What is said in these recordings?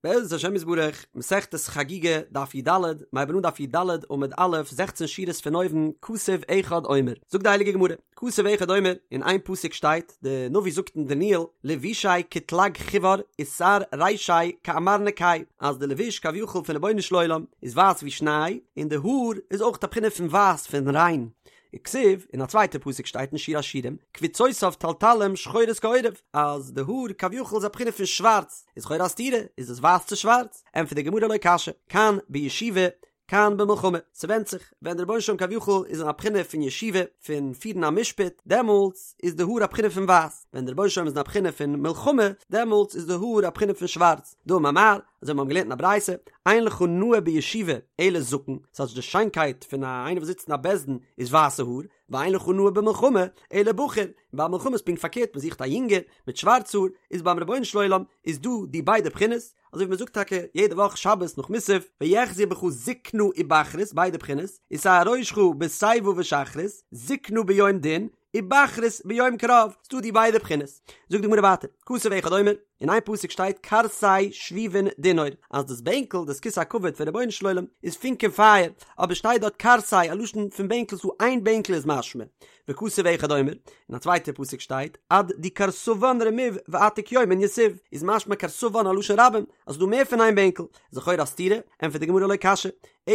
בעזרת השם יתברך, מסכת חגיגה, דף י"ד, מ'הייבן אן דף י"ד עמוד א', זעכצן שורות פון אויבן, כתוב אחד אומר, זאגט די הייליגע גמרא, כתוב אחד אומר, אין איין פסוק שטייט, די נביא זאגט אין דניאל, לבושיה כתלג חיור ושער רישיה כעמר נקי, אז די לבוש כביכול פון רבונו של עולם איז ווייס ווי שניי, און די האר איז אויך א בחינה פון ווייס פון ריין, וכתיב, אין א צווייטע פסוק שטייט אין שיר השירים, קווצותיו תלתלים שחורות כעורב, אז די האר כביכול איז א בחינה פון שווארץ, איז לכאורה א סתירה, איז עס ווייס צו שווארץ? ענטפערט די גמרא לא קשיא, כאן בישיבה, כאן במלחמה, ס'ווענדט זיך, ווען דער רבונו של עולם כביכול איז אין א בחינה פון ישיבה, פון פירן א משפט, דעמאלטס איז די האר א בחינה פון ווייס, ווען דער רבונו של עולם איז אין א בחינה פון מלחמה, דעמאלטס איז די האר א בחינה פון שווארץ. דאמר מר, אזוי מיר האבן געלערנט אין א ברייתא, אין לך נאה בישיבה אלא זקן, ס'טייטש די שיינקייט פון א איינער וואס זיצט אין א בית דין איז ווייסע האר, ואין לך נאה במלחמה אלא בחור, און ביי מלחמה איז פונקט פארקערט מען זוכט א יונגער מיט שווארץ האר, איז ביים רבונו של עולם איז דא די ביידע בחינות, אזוי ווי מען זאגט טאקע יעדע וואך שבת נאך מוסף, ויחזו בך זקנה ובחרות ביידע בחינות, ושער ראשך בשיבה ושחרות, זקנה ביום דין, ובחרות ביום קרב, ס'דא די ביידע בחינות. זאגט די גמרא ווייטער, כתוב אחד אומר, אין איין פסוק שטייט כרסי שביבין דינור, אז דאס בענקל, דאס כסא הכבוד פון רבונו של עולם, איז פונקען פייער, אבער שטייט דארט כרסי, א לשון פון בענקל, ס'דא איין בענקל איז משמע. וכתוב אחד אומר, אין א צווייטע פסוק שטייט, עד די כרסוון רמיו ועתיק יומין יתיב, איז משמע כרסוון א לשון רבים, אז ס'דא מער פון איין בענקל, איז לכאורה א סתירה, ענטפערט די גמרא לא קשיא,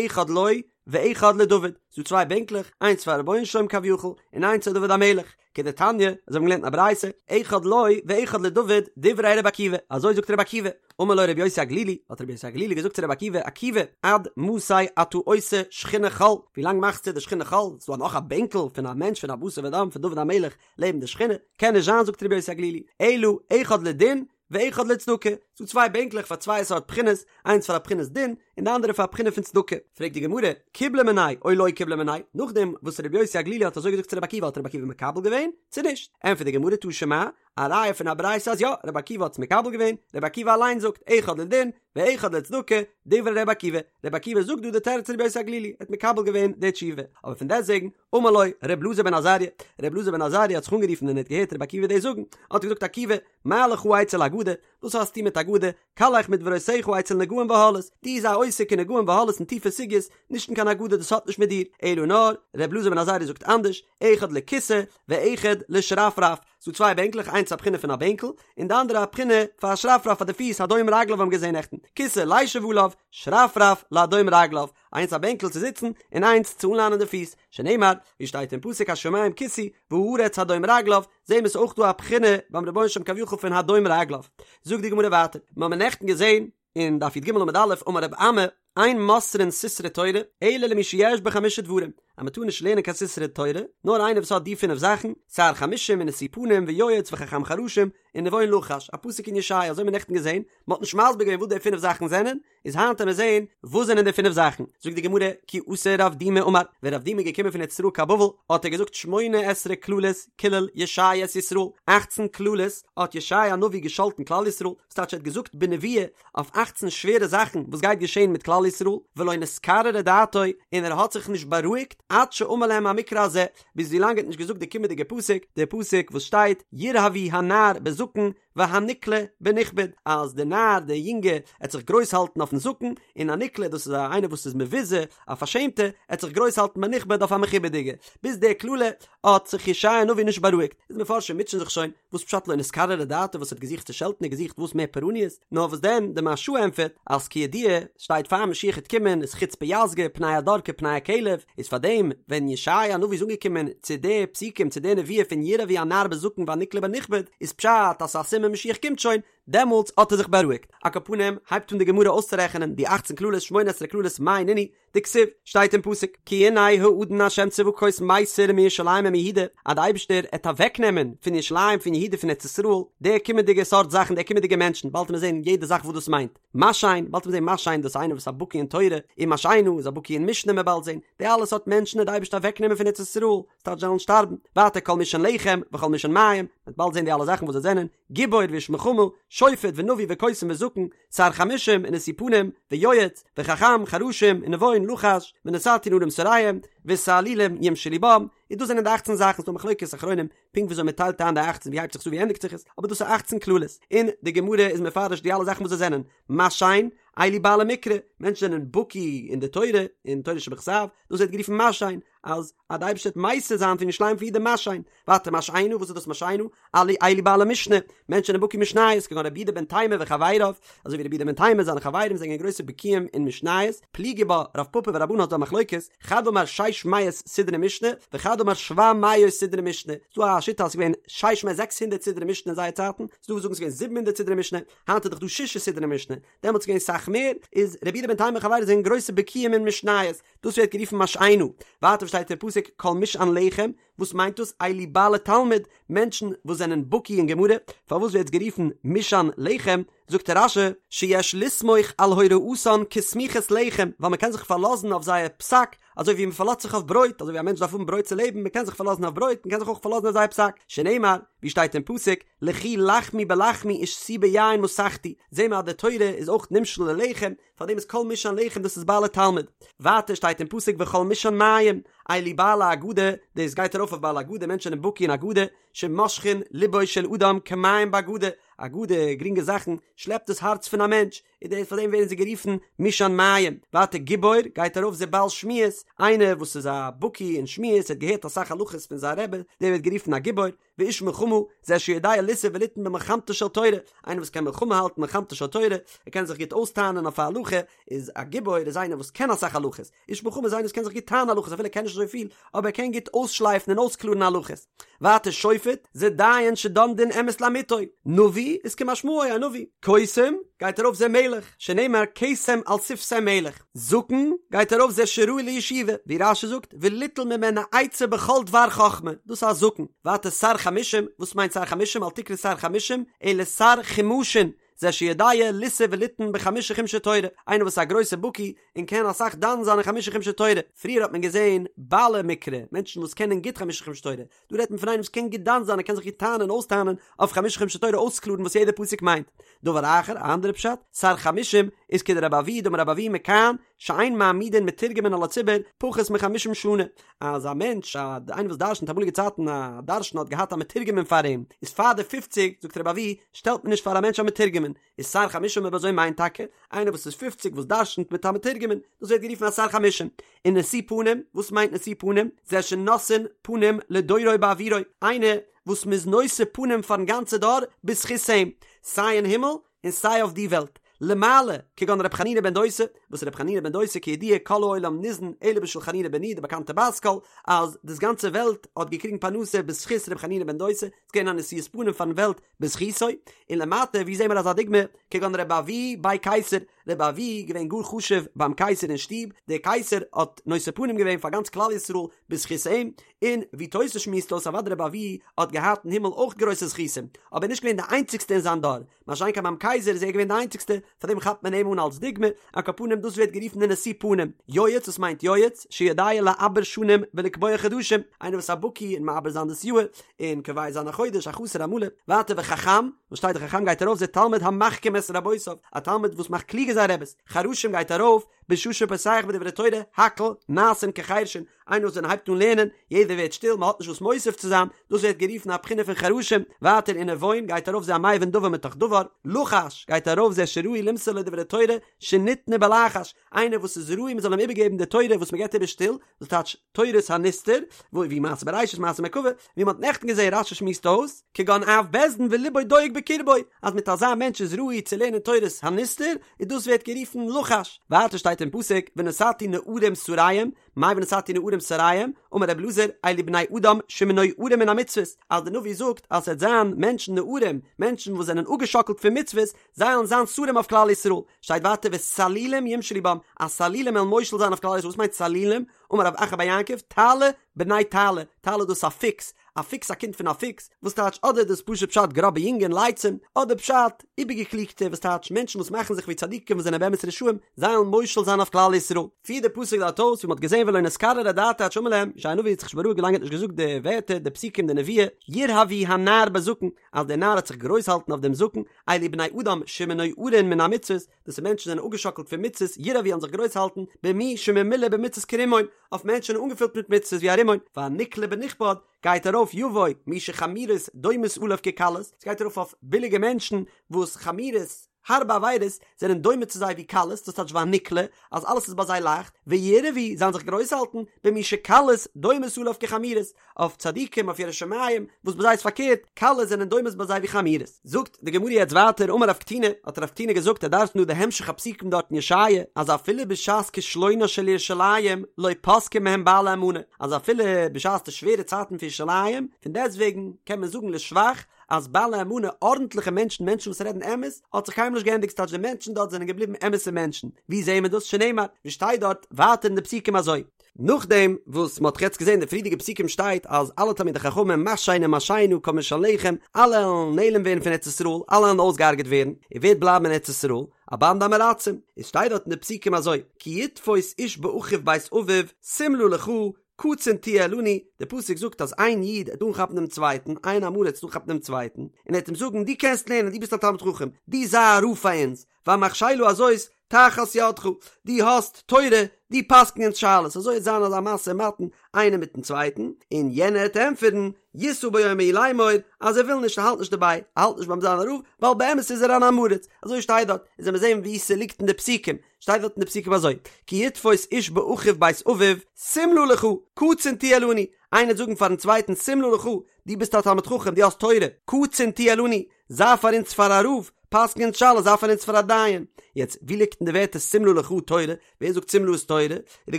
אחד לו ואחד לדוד, ס'דא צוויי בענקלעך, איינס פאר רבונו של עולם כביכול, און איינס פאר דוד המלך, כדתניא, אזוי האבן מיר געלערנט אין א ברייתא, אחד לו ואחד לדוד, דברי רבי עקיבא, אזוי זאגט רבי עקיבא, אמר לו רבי יוסי הגלילי, האט רבי יוסי הגלילי געזאגט צו רבי עקיבא, עקיבא, עד מתי אתה עושה שכינה חול, ווי לאנג מאכסטו די שכינה חול, ס'דא נאך א בענקל פון א מענטש פון א בשר ודם פון דוד המלך לעבן די שכינה, קען נישט זיין זאגט רבי יוסי הגלילי, אלא אחד לדין, ואחד לצדקה, ס'דא צוויי בענקלעך פאר צוויי סארט בחינות, איינס פאר א בחינת דין, און די אנדערע פאר א בחינה פון צדקה. פרעגט די גמרא, קיבלה מיניה או לא קיבלה מיניה, נאכדעם וואס רבי יוסי הגלילי האט אזוי געזאגט צו רבי עקיבא האט רבי עקיבא מקבל געווען, צו נישט? ענטפערט די גמרא תא שמע, א ראיה פון א ברייתא אז יא, רבי עקיבא האט עס מקבל געווען, רבי עקיבא אליין זאגט, אחד לדין, ואחד לצדקה, דברי רבי עקיבא, רבי עקיבא זאגט דא די תירוץ פון רבי יוסי הגלילי, ער האט מקבל געווען די תשובה, אבער פון דעסטוועגן, אמר לו ר' אלעזר בן עזריה, ר' אלעזר בן עזריה האט זיך אנגערופן ווען ער האט געהערט רבי עקיבא דאס זאגן, האט ער געזאגט עקיבא, מה לך אצל אגדה, וואס האסטו מיט אגדה, קלך מדברותיך אצל נגעים ואהלות, דו זיי עוסק אין נגעים ואהלות און טיפע סוגיות, נישט אין קיין אגדה דאס האט נישט מיט דיר, אלא נאר, ר' אלעזר בן עזריה זאגט אנדערש, אחד לכסא ואחד לשרפרף, ס'דא צוויי בענקלעך איינס א בחינה פון א בענקל, און די אנדערע א בחינה פאר א שרפרף פאר די פיס הדום רגליו האבן געזען נעכטן, כסא לישב עליו, שרפרף להדום רגליו, איינס א בענקל צו זיצן און איינס צו אנלאנען די פיס, שנאמר, ווי שטייט אין פסוק השמים כסאי והארץ הדום רגליו, זעהן מיר ס'אויך דא א בחינה ביים רבונו של עולם כביכול פון הדום רגליו. זאגט די גמרא ווייטער, מיר האבן נעכטן געזעהן אין דף י"ג עמוד א', אמר רב אמי, אין מוסרין סתרי תורה, אלא למי שיש בו חמשה דברים, אז מען טאר נישט לערנען קיין סתרי תורה, נאר איינער וואס האט די פינף זאכן, שר חמשים ונשוא פנים ויועץ וחכם חרשים, ונבון לחש, א פסוק אין ישעיה, אזוי האבן מיר נעכטן געזעהן, מען האט נישט מסביר געווען וואס די פינף זאכן זענען, איז היינט עמיר זעהן וואס זענען די פינף זאכן, זאגט די גמרא, כי אתא רב דימי אמר, ווען רב דימי איז געקומען פון ארץ ישראל קיין בבל, האט ער געזאגט שמונה עשרה קללות קילל ישעיה את ישראל, אכצן קללות האט ישעיה הנביא געשאלטן כלל ישראל, וואס טייטש ער האט געזאגט בנבואה אויף אכצן שווערע זאכן וואס גייט געשעהן מיט כלל ישראל, ולא נתקררה דעתו, און ער האט זיך נישט בארואיגט, עד שאמר להם המקרא הזה, ביז ווילאנג ער האט נישט געזאגט די קומענדיגע פסוק, די פסוק וואס שטייט, ירהבו הנער בזקן, והנקלה בנכבד, אז דער נער, דער יונגע, עט זיך גרויס האלטן אויפן זקן, און א נקלה, דאס איז א איינער וואס איז מבוזה, א פארשעמטע, עט זיך גרויס האלטן בנכבד אויף א מכובד'יגע. ביז דער קללה האט זיך ישעי' הנביא נישט בארואיגט. איז מפרשים מוטשען זיך שוין, וואס פשט לא נתקררה דעתו וואס האט געזוכט צו שעלטן און געזוכט וואס מער פורעניות? נאר וואס דען, די מהרש"א ענטפערט, אז כידוע, שטייט פאר משיח עט קומען איז חוצפה יסגא, פני הדור כפני הכלב, איז פאר דעם ווען ישעי' הנביא איז אנגעקומען צו די פסוקים צו די נבואה פון ירהבו הנער בזקן והנקלה בנכבד איז פשט אז ס'איז א סימן משיח קומט שוין, דעמאלטס האט ער זיך בארואיגט. על כל פנים הייבט אן די גמרא אויסצורעכענען די אכצן קללות שמונה עשרה קללות מאי נינהו, דכתיב, שטייט אין פסוק, כי הנה האדון ה' צבקות מסיר מירושלים ומיהודה, אז די אייבערשטער עט אוועקנעמען פון ירושלים פון יהודה פון ארץ ישראל די קומענדיגע סארט זאכן די קומענדיגע מענטשן, באלד עמיר זען יעדע זאך וואס דאס מיינט. משען, באלד עמיר זען משען דאס איז איינער וואס איז א בקי אין תורה, און משענה איז א בקי אין משנה מ'עט באלד זען, די אלע סארט מענטשן וועט די אייבערשטער אוועק נעמען פון ארץ ישראל, ס'טייטש זיי וועלן שטארבן, ווייטער כל משען לחם, וכל משען מים, מ'וועט באלד זען די אלע זאכן וואס זיי זענען, גיבור ואיש מלחמה, שופט ונביא וקוסם וזקן, שר חמשים ונשוא פנים, ויועץ, וחכם חרשים, ונבון לחש, ונתתי נערים שריהם, ותעלולים ימשלו בם. איז דאס זענען די אכצן זאכן, ס'דא מחלוקת אחרונים פונקט וויאזוי מען טיילט איין די אכצן ווי הייבט זיך עס אן ווי ענדיגט זיך עס, אבער דאס איז אכצן קללות, און די גמרא איז מפרש די אלע זאכן וואס זיי זענען, משען, אלו בעלי מקרא, מענטשן זענען בקי אין די תורה, אין תורה שבכתב, דאס ווערט גערופן משען, אז אז די אייבערשטער וועט מסיר זיין פון ירושלים פון אידן משען, ווייטער משענה, וואס איז דאס משענה? אלו אלו בעלי משנה, מענטשן זענען בקי משניות, כגון רבי יהודה בן תימא וחבריו, אזוי ווי רבי יהודה בן תימא זיינע חברים זענען גרויסע בקיאים אין משניות, פליגי בה רב פפא ורבנן האט דא א מחלוקת, חד אמר שש מאות סדרי משנה, וחד אמר שבע מאות סדרי משנה, ס'דא א שיטה אז ס'איז געווען שש מאות זעקס הונדערט סדרי משנה אין זייער צייטן, ס'דא וואס זאגן ס'איז געווען זיבן הונדערט סדרי משנה, היינט איז דאך דא ששה סדרי משנה, דעמאלטס איז געווען סאך מער, איז רבי יהודה בן תימא וחבריו זענען גרויסע בקיאים אין משניות, דאס ווערט גערופן משענה, ווייטער שטייט אין פסוק כל משען לחם, וואס מיינט דאס אלו בעלי תלמוד, מענטשן וואס זענען בקי אין גמרא, פארוואס ווערט עס גערופן משען לחם, זאגט רש"י, שיש לסמוך על הוראתן כסמיכת לחם, ווייל מען קען זיך פארלאזן אויף זייער פסק, אזוי ווי מען פארלאזט זיך אויף ברויט, אזוי ווי א מענטש דארף האבן ברויט צו לעבן, מען קען זיך פארלאזן אויף ברויט, מען קען זיך אויך פארלאזן אויף זייער פסק, שנאמר, ווי שטייט אין פסוק, לכו לחמו בלחמי ושתו ביין מסכתי, זעהן מיר אז די תורה איז אויך נמשל ללחם, פאר דעם איז כל משען לחם דאס איז בעלי תלמוד. ווייטער שטייט אין פסוק וכל משען מים, אלו בעלי אגדה, דאס גייט ארויף אויף בעלי אגדה, מענטשן זענען בקי אין אגדה, שמושכין לבו של אדם כמים באגדה, אגדה, גרינגע זאכן, שלעפט דאס הארץ פון א מענטש, און דאס פאר דעם ווערן זיי גערופן משען מים. ווייטער גיבור, גייט ארויף זה בעל שמועות, איינער וואס איז א בקי אין שמועות, האט געהערט אסאך הלכות פון זיין רבי, דער ווערט גערופן א גיבור. ואיש מלחמה, זה שיודע לישא וליתן במלחמתה של תורה, איינער וואס קען מלחמה האלטן מלחמתה של תורה, ער קען זיך גוט אויסטענה'ן אויף א הלכה, איז א גיבור איז איינער וואס קען אסאך הלכות, איש מלחמה איז איינער וואס קען זיך גוט טענה'ן הלכות אפילו ער קען נישט אזוי פיל, אבער ער קען גוט אויסשלייפן און אויסקלארן הלכות. ווייטער שופט, זה דיין שדן דין אמת לאמיתו, נביא איז כמשמעו א נביא, קוסם, גייט ארויף זה מלך, שנאמר קסם על שפתי מלך, זקן, גייט ארויף זה שראוי לישיבה, ווי רש"י זאגט, וליטול ממנו עצה בכל דבר חכמה, דאס איז א זקן, ווייטער שר חמשים, וואס מיינט שר חמשים, אל תקרי שר חמשים, אלא שר חומשין, זה שיודע לישא וליתן בחמשה חומשי תורה, איינער וואס איז א גרויסע בקי און קען אסאך דן זיין אין חמשה חומשי תורה, פריער האט מען געזען בעלי מקרא, מענטשן וואס קענען גוט חמשה חומשי תורה, דא רעדט מען פון איינעם וואס קען גוט דן זיין ער קען זיך גוט טענה'ן און אויסטענה'ן אויף חמשה חומשי תורה אויסקלארן וואס יעדער פסוק מיינט. דבר אחר, א אנדערע פשט, שר חמשים איז כדרבי אבהו דאמר רבי אבהו מכאן שאין מעמידין מתורגמן על הציבור פחות מחמישים שנה, אז א מענטש א איינער וואס דרשנ'ט אמאליגע צייטן א דרשן האט געהאט א מתורגמן פאר אים, איז פאר די פופציג זאגט רבי אבהו שטעלט מען נישט פאר א מענטש א מתורגמן, איז שר חמשים אויב אזוי מיינט טאקע איינער וואס איז פופציג וואס דרשנ'ט מיט א מתורגמן, דאס ווערט גערופן א שר חמשים. און נשוא פנים, וואס מיינט נשוא פנים? זה שנושאין פנים לדורו בעבורו, איינער וואס מ'איז נושא פנים פארן גאנצע דור בזכות אים, סיי אין הימל און סיי אויף די וועלט, למעלה, כגון ר' חנינא בן דוסא, וואס ר' חנינא בן דוסא כידוע כל העולם ניזון אלא בשביל חנינא בני, די באקאנטע בת קול, אז דאס גאנצע וועלט האט געקריגן פרנסה בזכות ר' חנינא בן דוסא, ס'איז געווען א נשיאות פנים פארן וועלט בזכותו, און למטה ווי זעהן מיר אזא דוגמא, כגון רבי אבהו בי קיסר, רבי אבהו געווען גאר חשוב ביים קיסר אין שטוב, דער קיסר האט נושא פנים געווען פאר גאנץ כלל ישראל בזכות אים, און ווי תוס' שמועסט אויס אוודאי רבי אבהו האט געהאט אין הימל אויך גרויסע זכותים, אבער נישט געווען די איינציגסטע אין זיין דור, מה שאין כן ביים קייזער איז ער געווען די איינציגסטע, פאר דעם כאפט מען אים אן אלס דוגמא, על כל פנים דאס ווערט גערופן די נשוא פנים, יועץ וואס מיינט יועץ? שיודע לעבר שנים ולקבוע חדשים, איינער וואס איז א בקי אין מעבר זיין דאס יאהר, און קובע זיין א חודש, א חסר א מלא, ווייטער וחכם, וואס שטייט די חכם גייט ארויף זה תלמיד המחכים את רבותיו, א תלמיד וואס מאכט קלוגער זיין רעבעס, חרשים גייט ארויף, בשעה שפותח בדברי תורה, הכל נעשים כחרשין, איינער וואס ווען ער הייבט אן לערנען, יעדער ווערט שטיל, מען האט נישט וואס מוסיף צו זיין, דאס ווערט גערופן א בחינה פון חרשים, ווייטער ונבון גייט ארויף זה המבין דבר מתוך דבר, לחש גייט ארויף זה שראוי למסור לו דברי תורה שניתנה בלחש, איינער וואס איז ראוי מען זאל אים איבערגעבן די תורה וואס מען געבט איבער שטיל, דאס טייטש תורת הנסתר, ווי מעשה בראשית מעשה מרכבה, ווי מען האט נעכטן געזען רשי שמועסט אויס, כגון אב בית דין ולבו דואג בקרבו, אז מיט אזא מענטש איז ראוי צו לערנען תורת הנסתר, און דאס ווערט גערופן לחש, ווייטער שטייט אין פסוק ונתתי נערים שריהם, מאי ונתתי נערים שריהם, אמר רבי אלעזר, אלו בני אדם שמנוערים מן המצוות, אז דער נביא זאגט אז ס'וועט זיין מענטשן נערים, מענטשן וואס זענען אפגעשאקלט פון מצוות, זיי וועלן זיין שרים אויף כלל ישראל, שטייט ווייטער וסלילים ימשלו בם, אז סלילים וועלן מושל זיין אויף כלל ישראל, וואס מיינט סלילים? אמר רב אחא בר יעקב, תעלי בני תעלי, תעלי דאס איז א פוקס, א פוקס א קינד פון א פוקס, וואס טייטש אדער דאס פשוט פשט גראבע יונגען לייצים, אדער פשט איבערגעקליגטע וואס טייטש מענטשן וואס מאכן זיך ווי צדיקים וואס זענען באמת רשעים, זיי וועלן מושל זיין אויף כלל ישראל. פירט דער פסוק דארט אויס ווי מען האט געזען. געווען ולא נתקררה דעתיה עד שאמר להם, ישעי' הנביא האט זיך נישט בארואיגט ווילאנג ער האט נישט געזאגט די ווערטער, די פסוקים, די נבואה, ירהבו הנער בזקן, אז דער נער העט זיך גרויס האלטן אויף דעם זקן, אלו בני אדם שמנוערין מן המצוות, דאס איז מענטשן זענען אפגעשאקלט פון מצוות, ירהבו וועלן זיך גרויס האלטן, במי שממולא במצוות כרימון, אויף מענטשן אנגעפילט מיט מצוות ווי א רימון, והנקלה בנכבד, גייט ארויף יבוא מי שחמורות דומות עליו כקלות, ס'גייט ארויף אויף ביליגע מענטשן וואס חמורות, הארבע עבירות, זענען דומה צו זיי ווי קלות, דאס טייטש והנקלה, אז אלעס איז ביי זיי לייכט, וירהבו, זיי זיך גרויס האלטן, במי שקלות דומות עליו כחמורות, אויף צדיקים, אויף יראי שמים, וואס ביי זיי איז פארקערט, קלות זענען דומות ביי זיי ווי חמורות. זאגט די גמרא יעצט ווייטער, אמר רב קטינא, האט רב קטינא געזאגט, ער דרש'נט דא די המשך הפסוקים דארט אין ישעיה, אז אפילו בשעת כישלונה של ירושלים לא פסקו מהם בעלי אמנה, אז אפילו בשעת די שווערע צייטן פון ירושלים, פון דעסטוועגן קען מען זאגן לשבח, אז בעלי אמנה, ארנטליכע מענטשן, מענטשן וואס רעדן אמת, האט זיך קיינמאל נישט געענדיגט, ס'טייטש די מענטשן דארט זענען געבליבן אמת'ע מענטשן. ווי זעהן מיר דאס? שנאמר, ווי שטייט דארט ווייטער אין די פסוקים אזוי. נאכדעם וואס מ'האט יעצט געזען די פריערדיגע פסוקים שטייט אז אלע תלמידי חכמים משענה משענה כל משען לחם, אלע וועלן נעלם ווערן פון ארץ ישראל, אלע וועלן אויסגעהארגעט ווערן, און ווער וועט בלייבן אין ארץ ישראל? א באנדע עם הארצים. עס שטייט דארט אין די פסוקים אזוי, כי יתפוס איש באחיו בית אביו, שמלה לך, קצין תהיה לנו, דער פסוק זאגט אז איין איד העט אנכאפן דעם צווייטן, איין עם הארץ העט אנכאפן דעם צווייטן, און ער העט אים זאגן, דו קענסט לערנען, דו ביסט א תלמיד חכם, דו זיי א רב פאר אונז, והמכשלה הזאת תחת ידך, דו האסט תורה, דו פסק'ן אונז שאלות, אזוי העט זיין אזא משא ומתן איינער מיטן צווייטן, און יענער העט ענטפערן, ישא ביום ההוא לאמור, אז ער וויל נישט, ער האלט נישט דערביי, ער האלט נישט ביים זיין א רב, ווייל באמת איז ער אן עם הארץ, אזוי שטייט דארט, און זאל מען זען וואו ס'ליגט אין די פסוקים, שטייט דארט אין די פסוקים אזוי, כי יתפוס איש באחיו בית אביו, שמלה לך, קצין תהיה לנו, איינער וועט זאגן פארן צווייטן שמלה לך, דו ביסט א תלמיד חכם, דו האסט תורה, קצין תהיה לנו, זיי פאר אונז פאר א רב, פסק'ן אונז שאלות, זיי פאר אונז פאר א דיין. יעצט, ווי ליגט אין די ווערטער שמלה לך תורה? ווער זאגט שמלה איז תורה? איז די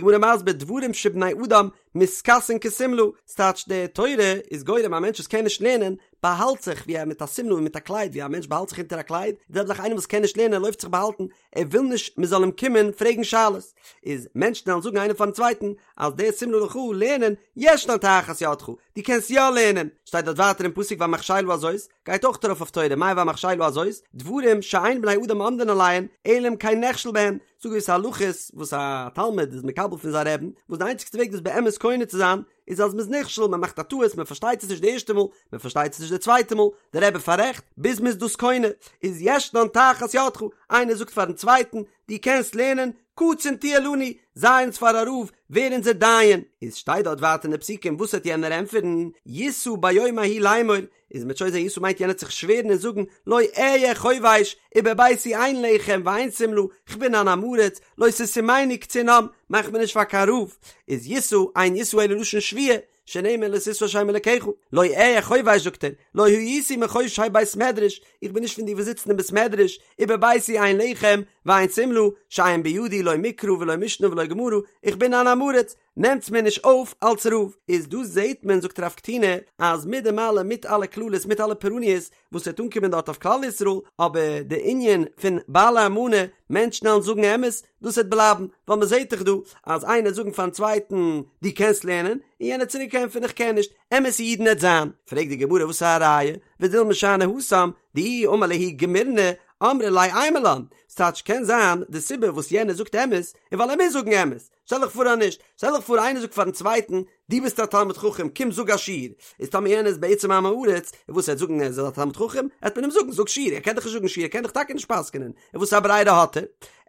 גמרא מסביר דברים שבני אדם מתכסין כשמלה, ס'טייטש די תורה איז גורם א מענטש וואס קען נישט לערנען, באהאלט זיך ווי א מיט א שמלה ווי מיט א קלייד ווי א מענטש באהאלט זיך אונטער א קלייד, די זעלבע זאך איינער וואס קען נישט לערנען לויפט זיך באהאלטן, ער וויל נישט מען זאל אים קומען פרעגן שאלות, איז מענטשן וועלן זאגן איינער פארן צווייטן אז דער שמלה לך לערנען ישנה תחת ידך, דו קענסט יא לערנען, שטייט דארט ווייטער אין פסוק והמכשלה הזאת, גייט אויך ארויף אויף תורה, מאי והמכשלה הזאת, דברים שאין בני אדם עומדין עליהן, אלא אם כן נכשל בהן, ס'דא געוויסע הלכות וואס א תלמיד איז מקבל פון זיין רעבן, וואס די איינציגסטע וועג דאס באמת קונה צו זיין, איז אז מ'איז נכשל, מ'מאכט א טעות, מ'פארשטייט עס נישט די ערשטע מאל, מ'פארשטייט עס נישט די צווייטע מאל, דער רבי פאררעכט, ביז מ'איז דאס קונה, איז ישנן תחת ידך, איינער זאגט פארן צווייטן, דו קענסט לערנען, קצין תהיה לנו, זיי אונז פאר א רב, ווער אונזער דיין. איז שטייט דארט ווייטער אין די פסוקים, וואס וועט יענער ענטפערן, ישא ביום ההוא לאמור, איז מ'וועט שוין זען ישא מיינט יענער וועט זיך שווערן און זאגן לא אהיה חובש ובביתי אין לחם ואין שמלה כ'בין אן עם הארץ לא תשימני קצין עם מאך מיר נישט פאר קיין רב איז ישא אין ישא אלא לשון שבועה שנאמר לא תשא את שם אלקיך לא אהיה חובש זאגט ער לא הייתי מחושבי בית מדרש איך בין נישט פון די וואס זיצן אין בית מדרש ובביתי אין לחם ואין שמלה שאין בידי לא מקרא ולא משנה ולא גמרא איך בין אן עם הארץ נעמטס מיר נישט אויף אלס רב. איז דא זעהט מען זאגט רב קטינא אז מיט דעם אלעם מיט אלע קללות מיט אלע פורעניות וואס וועט אנקומען דארט אויף כלל ישראל אבער די ענין פון בעלי אמנה מענטשן וועלן זאגן אמת דאס וועט בלייבן ווייל מען זעהט דאך דא אז איינער זאגן פארן צווייטן דו קענסט לערנען און יענער צוריק ענטפערן איך קען נישט אמת'ע אידן וועט זיין פרעגט די גמרא וואס איז א ראיה ודילמא שאני התם דאי אמר להו גמירנא אמרי ליה אימא לן ס'טייטש קען זיין די סיבה וואס יענער זאגט אמת איז ווייל ער מוז זאגן אמת שטעל דיך פאר אז נישט, שטעל דיך פאר איינער זאגט פארן צווייטן, דו ביסט א תלמיד חכם, קום זאג א שיעור, איז טאמער יענער איז בעצם א עם הארץ, און וואס ער וועט זאגן ער איז א תלמיד חכם, העט מען אים זאגן זאג שיעור, ער קען דאך נישט זאגן שיעור, ער קען דאך טאקע נישט פסק'נען, און וואס א ברירה האט ער?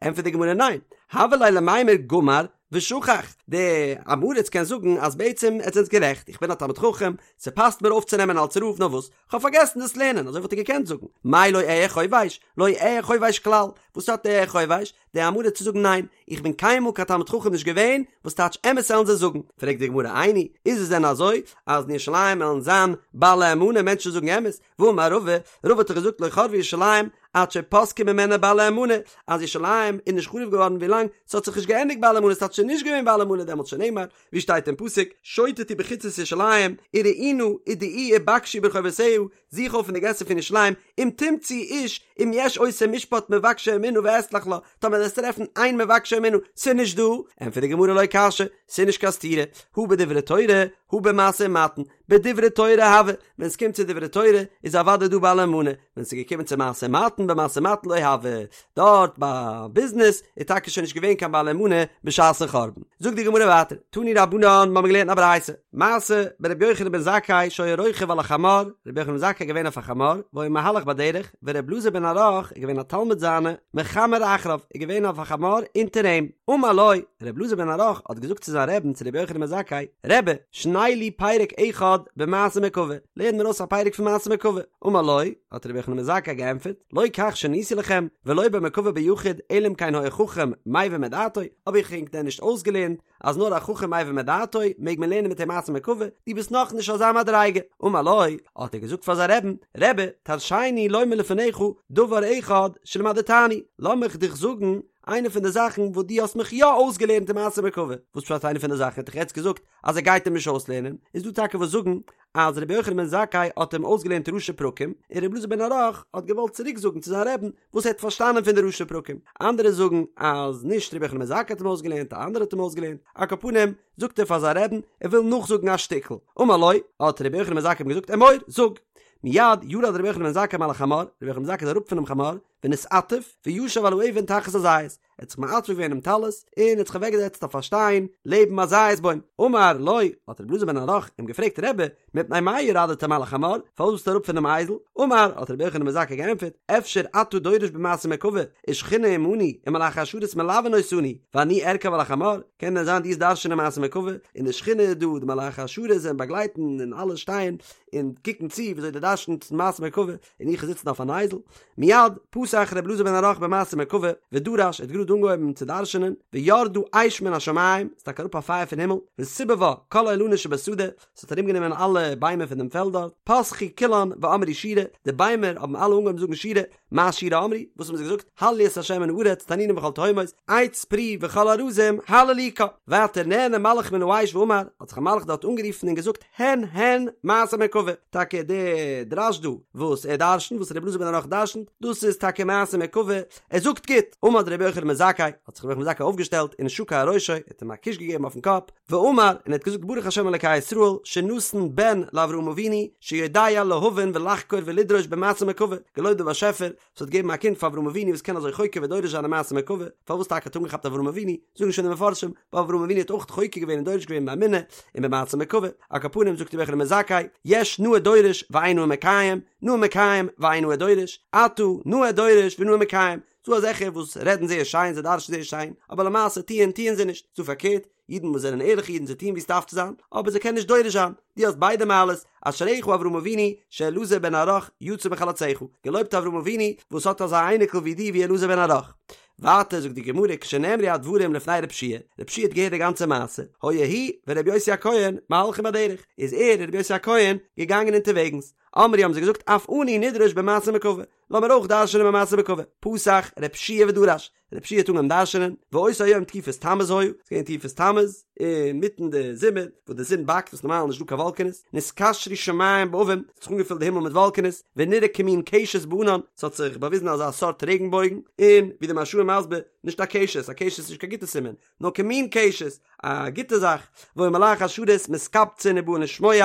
ענטפערט די גמרא ניין, הוה ליה למימר גמר ושכח, דער עם הארץ קען זאגן אז בעצם עטס זענטס גערעכט, איך בין א תלמיד חכם, ס'פאסט מיר אויפצונעמען אלס רב, נאר וואס, כ'האב פארגעסן דאס לערנען, אזוי וואלט ער געקענט זאגן, מאי לא אהיה חובש, לא אהיה חובש כלל, וואס האט אהיה חובש? דער עם הארץ צו זאגן ניין, איך בין קיינמאל קיין תלמיד חכם נישט געווען, וואס טייטש אמת עלן זיי זאגן? פרעגט די גמרא איני, איז עס דען אזוי אז אין ירושלים עלן זיין בעלי אמנה מענטשן זאגן אמת? והאמר רבא, רבא האט דאך געזאגט לא חרבה ירושלים עד שפסקו ממנה בעלי אמנה, אז ירושלים איז נישט חרוב געווארן ווילאנג ס'האט זיך נישט געענדיגט בעלי אמנה, ס'טייטש ס'איז נישט געווען בעלי אמנה דעמאלטס שנאמר, ווי שטייט אין פסוק, שוטטו בחוצות ירושלים, וראו נא, ודעו ובקשו ברחובותיה, זוך אויף אין די געסער פון ירושלים, אם תמצאו איש, אם יש עושה משפט מבקשי אמונה ואסלח לה, טאמער וועסטו טרעפן איין מבקשי אמונה, ס'איז נישט דא, ענטפערט די גמרא לא קשיא, ס'איז נישט קיין סתירה, הא בדברי תורה, הא במשא ומתן, בדברי תורה הוה, ווען ס'קומט צו דברי תורה איז אוודאי דא בעלי מנה, ווען ס'איז געקומען צו משא ומתן במשא ומתן לא הוה, דארט ביי ביזנעס איז טאקע שוין נישט געווען קיין בעלי מנה בשעת'ן חורבן. זאגט די גמרא ווייטער, תנו רבנן, מ'האמיר געלערנט א ברייתא, מעשה ברבי יוחנן בן זכאי שהיה רוכב על החמור, רבי יוחנן בן זכאי איז געווען אויף א חמור, והיה מהלך בדרך, ורבי אלעזר בן ערך איז געווען א תלמיד זיינע, מחמר אחריו, איז געווען אויף א חמור אונטער אים, אמר לו, רבי אלעזר בן ערך האט געזאגט צו זיין רעבן צו רבי יוחנן בן זכאי, רבי, שנה לי פרק אחד במעשה מרכבה, לערן מיר אויס א פרק פון מעשה מרכבה, אמר לו, האט רבי יוחנן בן זכאי געענטפערט, לא כך שניתי לכם, ולא במרכבה ביחיד, אלא אם כן היה חכם מבין מדעתו, האב איך ענק דען נישט אויסגעלערנט אז נאר א חכם מבין מדעתו מעג מען לערנען מיט אים מעשה מרכבה, דו ביסט נאך נישט אזא מדריגה. אמר לו, האט ער געזאגט פאר זיין רעבן, רבי, תרשני לומר לפניך דבר אחד שלמדתני, לאמיך דיך זאגן איינע פון די זאכן וואס דו האסט מיך יא אויסגעלערנט אין מעשה מרכבה. וואס פשט איינע פון די זאכן? ער האט דאך יעצט געזאגט אז ער גייט אים נישט אויסלערנען, איז דא טאקע וואס זאגן אז רבי יוחנן בן זכאי האט אים אויסגעלערנט ראשי פרקים, און רבי אלעזר בן ערך האט געוואלט צוריק זאגן צו זיין רעבן וואס ער האט פארשטאנען פון די ראשי פרקים, אנדערע זאגן אז נישט רבי יוחנן בן זכאי האט אים אויסגעלערנט, א אנדערער האט אים אויסגעלערנט, על כל פנים זאגט ער פאר זיין רעבן ער וויל נאכזאגן א שטיקל, אמר לו, האט רבי יוחנן בן זכאי אים געזאגט אמור, זאג. מיד ירד רבי יוחנן בן זכאי מעל החמור, רבי יוחנן בן זכאי איז אראפ פונעם חמור, ונתעטף, וישב על האבן תחת הזית, ער האט זיך מעטף געווען דעם טלית, און האט זיך אוועקגעזעצט אויף א שטיין לעבן א זית בוים. אמר לו, האט רבי אלעזר בן ערך אים געפרעגט, רבי, מפני מה ירדת מעל החמור, פארוואס ביסטו אראפ פונעם אייזל? אמר, האט רבי יוחנן בן זכאי געענטפערט, אפשר אתה דורש במעשה מרכבה, ושכינה עמנו, ומלאכי השרת מלווין אותנו, ואני ארכב על החמור, קען דען זיין דו וועסט דרש'ענען מעשה מרכבה, און די שכינה איז דא, די מלאכי השרת זענען באגלייטן און אלע שטייען און קוקן צו וויאזוי דו דרש'נסט מעשה מרכבה, און איך זיצן אויף אן אייזל. מיד פתח רבי אלעזר בן ערך במעשה מרכבה, ודרש, ער האט גראד אנגעהויבן צו דרש'ענען, וירדה אש מן השמים, ס'איז טאקע אראפ א פייער פון הימל, וסיבבה כל האילנות שבשדה, ס'האט ארומגענומען אלע ביימער פון דעם פעלד דארט, פתחו כולן ואמרו שירה, די ביימער האבן אלע אנגעהויבן זאגן שירה, מה שירה אמרו, וואס האבן זיי געזאגט, הללו את ה' מן הארץ, תנינים וכל תהומות, עץ פרי וכל ארזים, הללוקה. ווייטער נענה מלאך מן האש ואמר, האט זיך א מלאך דארט אנגערופן און געזאגט, הן הן מעשה מרכבה, טאקע די דרש דא וואס ער דרשנט, וואס רבי אלעזר בן ערך דרשנט, דאס איז טאקע מעשה מרכבה, ער זאגט גוט, עמד רבי יוחנן בן זכאי, האט זיך רבי יוחנן בן זכאי אויפגעשטעלט ונשקו על ראשו, ער האט אים א קוש געגעבן אויפן קאפ, ואמר, און ער האט געזאגט ברוך השם אלקי ישראל, שנתן בן לאברהם אבינו, שיודע להבין ולחקור ולדרוש במעשה מרכבה, געלויבט דער באשעפער וואס האט געגעבן א קינד פאר אברהם אבינו וואס קען אזוי חוקר ודורש זיין אין מעשה מרכבה, פארוואס טאקע האט אנגעכאפט אברהם אבינו, זאגן שוין די מפרשים, ווייל אברהם אבינו האט אויך חוקר געווען און דורש געווען באמונה און במעשה מרכבה, על כל פנים זאגט רבי יוחנן בן זכאי, יש נאה דורש ואין נאה מקיים, נאה מקיים ואין נאה דורש, אתה נאה דורש ונאה מקיים, ס'דא אזעלכע וואס רעדן זייער שיין, זיי דרש'ן זייער שיין, אבער למעשה טוען טוען זיי נישט, ס'דא פארקערט, אידן וואס זענען ערליכע אידן זיי טוען ווי עס דארף צו זיין, אבער זיי קענען נישט דורש זיין, דו האסט ביידע מעלות, אשריך אברהם אבינו שאלעזר בן ערך יצא מחלציך, געלויבט אברהם אבינו וואס האט אזא אייניקל ווי דיר ווי אלעזר בן ערך. ווייטער זאגט די גמרא כשנאמרו הדברים לפני רב שיע, רב שיע האט געהערט די גאנצע מעשה, היה הוא ורבי יוסי הכהן מהלכים בדרך, איז ער און רבי יוסי הכהן געגאנגען אונטערוועגנס, אמרו האבן זיי געזאגט אף אנו נדרוש במעשה מרכבה, לאמיר אויך דרש'נען במעשה מרכבה, פתח רב שיע ודרש, רב שיע האט אנגעהויבן דרש'נען, ואותו היום תקופת תמוז היה, ס'איז געווען תקופת תמוז, אינמיטן די זומער, וואס די זון באקט, וואס נארמאל איז נישטא קיין וואלקענעס, נתקשרו שמים בעבים, ס'האט זיך אנגעפילט די הימל מיט וואלקענעס, ונראה כמין קשת בענן, ס'האט זיך באוויזן אזא סארט רעגנבויגן, און ווי די מהרש"א איז מסביר, נישט א קשת, א קשת איז נישט קיין גוטע סימן, נאר כמין קשת, א גוטע זאך, והיו מלאכי השרת מתקבצין ובאין לשמוע,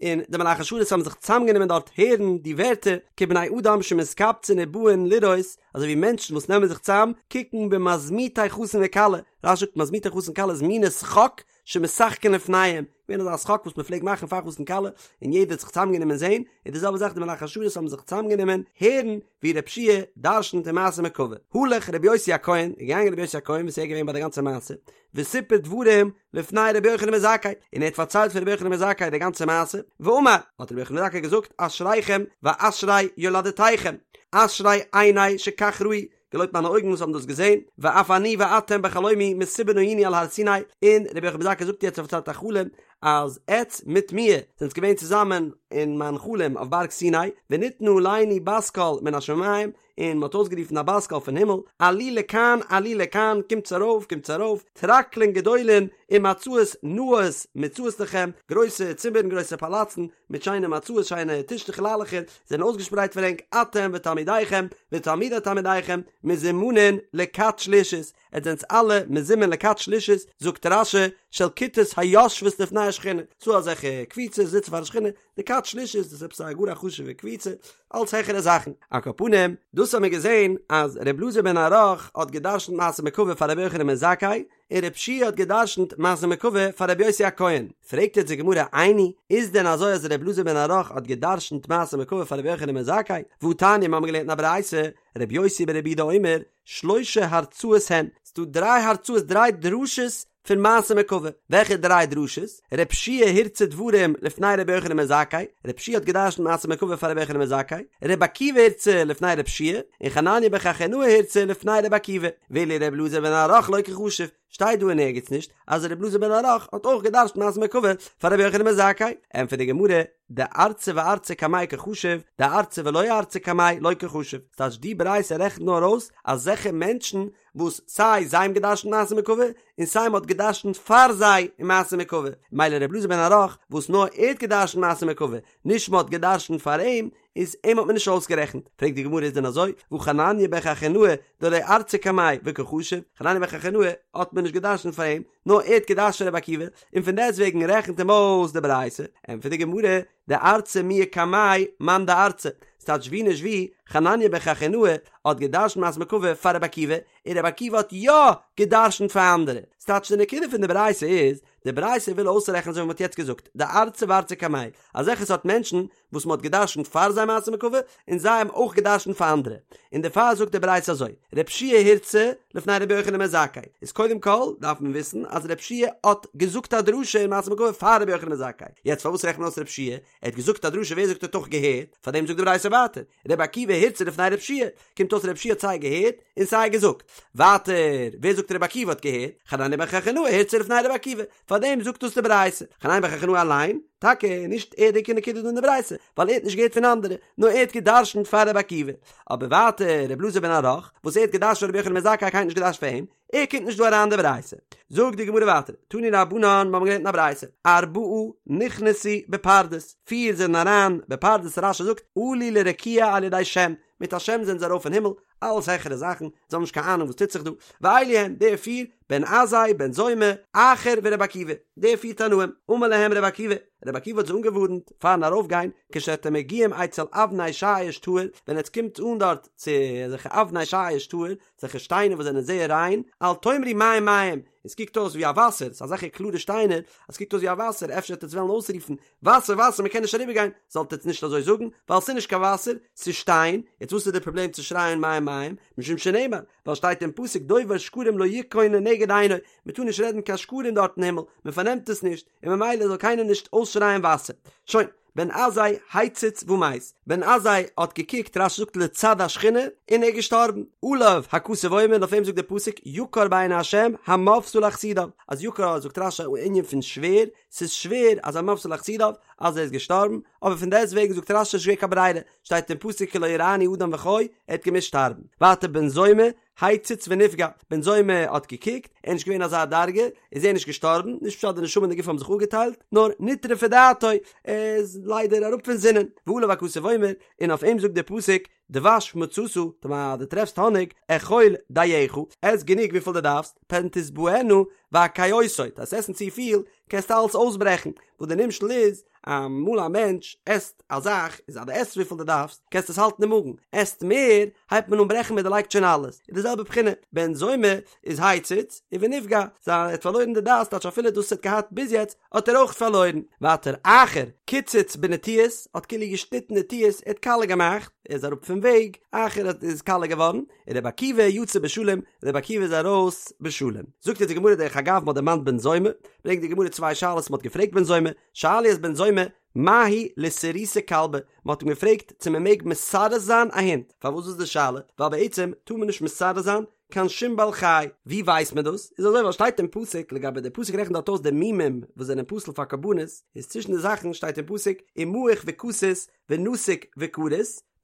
און די מלאכי השרת האבן זיך צוזאמגענומען דארט הערן די ווערטער, כבני אדם שמתקבצין ובאין לראות, אזוי ווי מענטשן וואס נעמען זיך צוזאם קוקן במזמוטי חתן וכלה, רש"י זאגט מזמוטי חתן וכלה איז מיני שחוק שמשחקין לפניהם, געווען אזא שחוק וואס מען פלעגט מאכן פאר חתן כלה, און יעדער האט זיך צוזאמגענומען זען, און די זעלבע זאך די מלאכי השרת האבן זיך צוזאמגענומען הערן ווי רב שיע דרשנ'ט אין מעשה מרכבה. הלך רבי יוסי הכהן, איז געגאנגען רבי יוסי הכהן וואס איז געווען ביי די גאנצע מעשה, וסיפר דברים לפני רבי יוחנן בן זכאי, און ער האט פארציילט פאר רבי יוחנן בן זכאי די גאנצע מעשה, ואמר, האט רבי יוחנן בן זכאי געזאגט, אשריכם ואשרי יולדתיכם, אשרי עיני שכך ראו, געלויבט מיינע אויגן וואס האבן דאס געזען, ואף אני ואתם בחלומי מסובין היינו על הר סיני, און רבי יוחנן בן זכאי זאגט יעצט ער פארציילט א חלום, אז עטץ מיט מיר זענטס געווען צוזאמען אין מיין חלום אויף בארג סיני, וניתנה עלינו בת קול מן השמים, און מען האט אויסגערופן א בת קול פון הימל, עלו לכאן עלו לכאן, קומטס ארויף קומטס ארויף, טרקלין גדולין ומצעות נאות מוצעות לכם, גרויסע צימערן גרויסע פאלאצן מיט שיינע מצעות שיינע טישטעך ליילעכער זענען אויסגעשפרייט פאר ענק, אתם ותלמידיכם ותלמידי תלמידיכם מזומנין לכת שלישית. עטס זענטס אלע מזומן לכת שלישית, זאגט רש"י, של כיתות היושבות לפני השכינה, ס'דא אזעלכע קבוצות זיצן פאר די שכינה, די כת שלישית דאס איז עפעס א גאר א חשוב'ע קבוצה, אלץ העכערע זאכן. על כל פנים, דאס האבן מיר געזען אז ר' אלעזר בן ערך האט גע'דרש'נט מעשה מרכבה פאר רבי יוחנן בן זכאי, און ר' יהושע האט גע'דרש'נט מעשה מרכבה פאר רבי יוסי הכהן. פרעגט יעצט די גמרא איני, איז דען אזוי אז ר' אלעזר בן ערך האט גע'דרש'נט מעשה מרכבה פאר רבי יוחנן בן זכאי? והתניא מיר האבן געלערנט אין א ברייתא, רבי יוסי ברבי יהודה אומר, שלשה הרצאות הן, ס'דא דריי הרצאות דריי דרשות פון מעשה מרכבה, וועלכע דריי דרשות? ר' יהושע הרצה דברים לפני רבי יוחנן בן זכאי, ר' יהושע האט געדרשנט מעשה מרכבה פאר רבי יוחנן בן זכאי, רבי עקיבא הרצה לפני ר' יהושע, און חנניה בן חכינאי הרצה לפני רבי עקיבא, ואילו ר' אלעזר בן ערך לא קחשיב, שטייט דא אין ערגעץ נישט אז ר' אלעזר בן ערך האט אויך געדרשנט מעשה מרכבה פאר רבי יוחנן בן זכאי, ענטפערט די גמרא, דארצי וארצי קמיה קחשיב, דארצי ולא ארצי קמיה לא קחשיב, ס'טייטש די ברייתא רעכנט נאר אויס אזעלכע מענטשן וואס סיי זיי האבן געדרשנט מעשה מרכבה און סיי מ'האט געדרשנט פאר זיי אין מעשה מרכבה, מילא ר' אלעזר בן ערך וואס נאר ער האט געדרשנט מעשה מרכבה, נישט מ'האט געדרשנט פאר אים, איז אים האט מען נישט אויסגערעכנט. פרעגט די גמרא איז דען אזוי, והא חנניה בן חכינאי דלא ארצי קמיה וקא חשיב, חנניה בן חכינאי האט מען נישט געדרשנט פאר אים, נאר ער האט געדרשנט רבי עקיבא, און פון דעסטוועגן רעכנט אים אויס די ברייתא, ענטפערט די גמרא, דארצי מיהא קמיה מאן דארצי, ס'טייטש ווי נישט ווי, חנניה בן חכינאי האט געדרשנט מעשה מרכבה פאר רבי עקיבא, און רבי עקיבא האט יא געדרשנט פאר אנדערע. ס'טייטש די נקודה פון די ברייתא איז, די ברייתא וויל אויסרעכענען אזוי ווי מ'האט יעצט געזאגט, דארצי וארצי קמיה, אזעלכע סארט מענטשן וואס מ'האט געדרשנט פאר זיי מעשה מרכבה, און זיי האבן אויך געדרשנט פאר אנדערע. און דערפאר זאגט די ברייתא אזוי, ר' יהושע הרצה לפני רבי יוחנן בן זכאי, איז קודם כל דארף מען וויסן אז ר' יהושע האט געזאגט א דרשה אין מעשה מרכבה פאר רבי יוחנן בן זכאי, יעצט פארוואס רעכנט מען אויס ר' יהושע? ער האט געזאגט א דרשה ווער זאגט ער האט אויך געהערט? פארדעם זאגט די ברייתא ווייטער, רבי עקיבא הרצה לפני ר' יהושע, קומט אויס ר' יהושע האט סיי געהערט און סיי געזאגט. ווייטער, ווער זאגט רבי עקיבא האט געהערט? חנניה בן חכינאי הרצה לפני רבי עקיבא, פארדעם זאגט דאס די ברייתא. חנניה בן חכינאי אליין, טאקע נישט ער די עיקר נקודה דא אין די ברייתא, ווייל ער האט נישט געהערט פון אנדערע, נאר ער האט גע'דרש'נט פאר רבי עקיבא. אבער ווייטער רבי אלעזר בן ערך, וואס ער האט גע'דרש'נט פאר רבי יוחנן בן זכאי קיינער האט נישט גע'דרש'נט פאר אים, ער קומט נישט דא אריין אין די ברייתא. זאגט די גמרא ווייטער, תנו רבנן, מיר האבן געלערנט אין א ברייתא, ארבעה נכנסו בפרדס, פיר זענען אריין בפרדס, רש"י זאגט, עלו לרקיע על ידי שם, מיט א שם זענען זיי ארויף אין הימל, אלעס העכערע זאכן, זיי האבן נישט קיין אהנונג וואס טוט זיך דא, ואלו הן, די פיר, בן עזאי, בן זומא, אחר ורבי עקיבא, די פיר תנאים, אמר להם רבי עקיבא, רבי עקיבא האט זיי אנגעווארנט פארן ארויפגיין, כשאתם מגיעים אצל אבני שיש טהור, ווען עטס קומט אן דארט צו אזעלכע אבני שיש טהור, אזעלכע שטיינער וואס זענען זייער ריין, אל תאמרו מים מים, עס קוקט אויס ווי א וואסער, ס'איז אזעלכע קלארע שטיינער, אז ס'קוקט אויס ווי א וואסער, אפשר וועט עטס וועלן אויסרופן, וואסער וואסער מ'קען נישט אריבערגיין, זאלט עטס נישט אזוי זאגן, ווייל ס'איז נישט קיין וואסער, ס'איז שטיין, יעצט וואס איז די פראבלעם צו שרייען מים מים, משום שנאמר, ווייל שטייט אין פסוק דובר שקרים לא יכון לנגד עיני, מ'טאר נישט רעדן קיין שקרים דארט אין הימל, מ'פארנעמט עס נישט, און ממילא זאל קיינער נישט אויסשרייען וואסער. שוין. בן עזאי הציץ ומת, בן עזאי האט געקוקט, רש"י זאגט לצד השכינה, און ער איז געשטארבן. עליו הכתוב אומר, און אויף אים זאגט דער פסוק, יקר בעיני השם המותה לחסידיו, אז יקר זאגט רש"י א ענין פון שווער, ס'איז שווער אז המותה לחסידיו, אז ער איז געשטארבן, אבער פון דעסט וועגן זאגט רש"י ס'איז נישט געווען קיין ברירה, שטייט אין פסוק כי לא יראני האדם וחי, ער האט געמוזט שטארבן. ווייטער בן זומא, הציץ ונפגע, בן זומא האט געקוקט, ער איז נישט געווען אזא דרגה, איז ער נישט געשטארבן, נישט פשט די נשמה און די גוף האבן זיך אפגעטיילט, נאר נטרפה דעתו, ער איז ליידער אראפ פון זינען, ועליו הכתוב אומר, און אויף אים זאגט דער פסוק, דבש מצאת, טאמער דו טרעפסט האניג, אכול דייך, עס גענוג וויפיל דו דארפסט, פן תשבענה והקאותו, וועסט עסן צופיל, קענסטו אלעס אויסברעכן, וואס די נמשל איז, אמאל א מענטש עסט א זאך, איז אז דו עסט וויפיל דו דארפסט, קענסטו עס האלטן אין מאגן, עסט מער, הייבט מען אן ברעכן מען דערלייגט שוין אלעס, איז די זעלבע בחינה, בן זומא איז הציץ, און ונפגע, זיין ער האט פארלוירן די דעת, טייטש אפילו דאס וואס ער האט געהאט ביז יעצט, האט ער אויך פארלוירן. ווייטער אחר, קיצץ בנטיעות, האט כאילו געשניטן נטיעות, ער האט קאלע געמאכט, ער איז אראפ פון וועג, אחר האט איז קאלע געווארן, און רבי עקיבא יצא בשלום, רבי עקיבא איז ארויס בשלום. זאגט אונז די גמרא דרך אגב מ'האט דערמאנט בן זומא, ברענגט די גמרא צוויי שאלות מ'האט געפרעגט בן זומא, שאלו את בן זומא, מהו לסרוסי כלבא, מ'האט אים געפרעגט צו מ'מעג מסרס זיין א הונט, פארוואס איז די שאלה? ווייל בעצם טאר מען נישט מסרס זיין קיין שום בעל חי, ווי ווייסט מען דאס? איז אזוי ווייל שטייט אין פסוק לגבי די פסוק רעכנט דארט אויס די מומים וואס זענען פסול פאר קרבנות, איז צווישן די זאכן שטייט אין פסוק ומעוך וכתות ונתוק וכרות,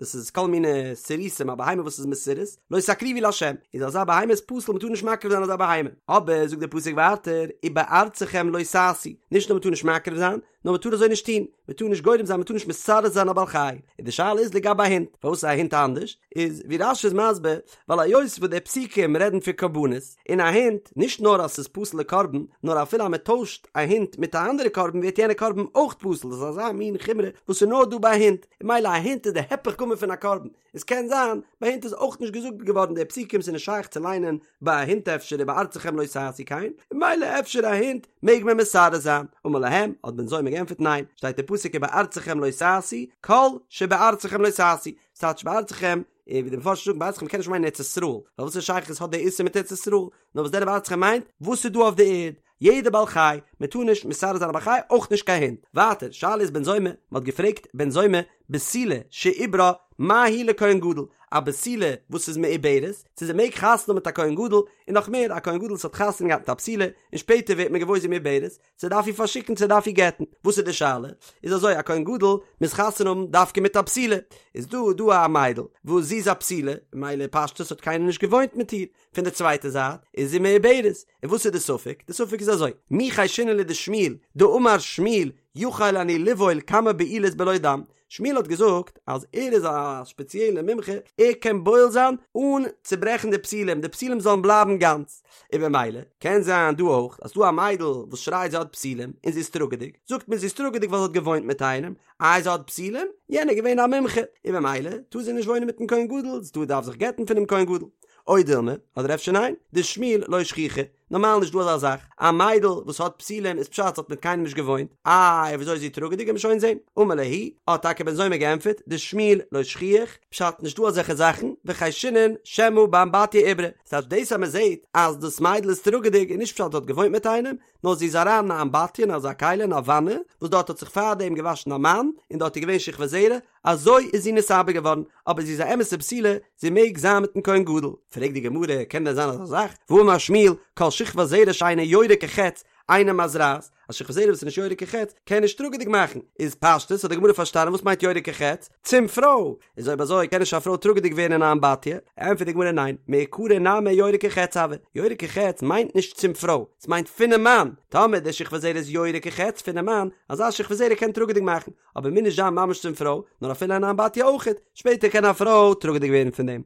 דאס איז כל מיני סירוסים א בהמה וואס איז מסורס, לא תקריבו לה', איז אזא בהמה איז פסול מ'טאר נישט מקריב זיין אזא בהמה, אבער זאגט דער פסוק ווייטער ובארצכם לא תעשו, נישט נאר מ'טאר נישט מקריב זיין, נאר מ'טאר אזוי נישט טון, מ'טאר נישט גורם זיין מ'טאר נישט מסרס זיין א בעל חי, און די שאלה איז לגבי א הונט, פארוואס איז א הונט אנדערש? איז ווי רש"י איז מסביר, ווייל היות וואס די פסוקים רעדן פון קרבנות, און א הונט, נישט נאר אז ס'איז פסול לקרבן, נאר אפילו אז מ'טוישט א הונט מיט א אנדערע קרבן ווערט יענע קרבן אויך פסול, דאס איז אזא מין חומרא וואס איז נאר דא ביי א הונט, און ממילא א הונט איז די היפך גמור פון א קרבן, עס קען זיין ביי הינט איז אויך נישט געזאגט געווארן די פסוקים ס'איז נישט שייך צו ליינען ביי א הונט אפשר ובארצכם לא תעשו כן, און ממילא אפשר א הונט מעג מען מסרס זיין, אמר להם, האט בן זומא געענטפערט ניין, שטייט אין פסוק ובארצכם לא תעשו, כל שבארצכם לא תעשו, ס'טייטש בארצכם, און ווי די מפרשים זאגן בארצכם קען נישט מיינען ארץ ישראל, ווייל וואס א שייכות האט די איסור מיט ארץ ישראל, נאר וואס דען ובארצכם מיינט וואס איז דא אויף די ערד, יעדע בעל חי, מען טאר נישט מסרס זיין א בעל חי, אויך נישט קיין הונט. ווייטער, שאלה איז בן זומא, מען האט געפרעגט בן זומא, בתולה שעוברה מה היא לכהן גדול, א בתולה וואס איז מעוברת, צו זי מעג חתונה האבן מיט א כהן גדול, און נאך מער, א כהן גדול וואס האט חתונה געהאט מיט א בתולה, און שפעטער ווערט מען געוואויר זי איז מעוברת, צו דארף איר פארשיקן צו דארף איר גט'ן, וואס איז די שאלה? איז אזוי, א כהן גדול מוז חתונה האבן דווקא מיט א בתולה, איז דא דא א מיידל וואס זי איז א בתולה, ממילא פשטות האט קיינער נישט געוואוינט מיט איר, פון די צווייטע זייט איז זי מעוברת, און וואס איז די ספק? די ספק איז אזוי, מי חיישינן לדשמואל דאמר שמואל יכול אני לבעול כמה בעילות בלא דם, שמואל האט געזאגט אז ער איז א שפעציעלע מומחה, ער קען בועל זיין אן צוברעכן די בתולים, די בתולים זאלן בלייבן גאנץ, און במילא קען זיין דא אויך אז ס'דא א מיידל וואס שרייט זי האט בתולים און זי איז טראגעדיג, זאגט מען זי איז טראגעדיג ווייל זי האט געוואוינט מיט איינעם, איי זי האט בתולים? יענער איז געווען א מומחה, און במילא טאר זי נישט וואוינען מיטן כהן גדול, זי טאר דארף זיך גט'ן פונעם כהן גדול. או דילמא, אדער אפשר ניין, דשמואל לא שכיחא, נארמאל נישט דא אזא זאך, א מיידל וואס האט בתולים איזפשט זי האט מיט קיינעם נישט געוואוינט, איי וויאזוי איז זי טראגעדיג וועט מען שוין זען, אמר להו, האט טאקע בן זומא געענטפערט, דשמואל לא שכיח, פשט נישט דא אזעלכע זאכן, וחיישינן שמא באמבטיה עיברה, ס'טייטש דאס אז מען זעט אז דאס מיידל איז טראגעדיג איז נישט פשט זי האט געוואוינט מיט איינעם, נאר זי איז אריין אין א אמבטיה אין אזא כלי אין א וואנע, וואס דארט האט זיך פארדעם געוואשן א מאן, און דארט איז געווען שכבת זרע, אזוי איז זי נתעבר געווארן, אבער זי איז א אמת'ע בתולה, זי מעג זיין מיט'ן כהן גדול. פרעגט די גמרא, קען דען זיין אזא זאך? והאמר שמואל, כל שכבת זרע שאינה יורה כחץ, אינה מזרעת, א שכבת זרע וואס איז נישט יורה כחץ, קען נישט טראגעדיג מאכן. איז פשטות האט די גמרא פארשטאנען וואס מיינט יורה כחץ? צום פרוי! איז אויב אזוי קען נישט א פרוי טראגעדיג ווערן אין א אמבטיה? ענטפערט די גמרא ניין, מעיקרא נמי יורה כחץ הוי, יורה כחץ מיינט נישט צום פרוי, ס'מיינט פונעם מאן, טאמער די שכבת זרע איז יורה כחץ פונעם מאן, אזא שכבת זרע קען טראגעדיג מאכן, אבער מוז נישט זיין ממש צום פרוי, נאר אפילו אין א אמבטיה אויכעט, שפעטער קען א פרוי טראגעדיג ווערן פון דעם.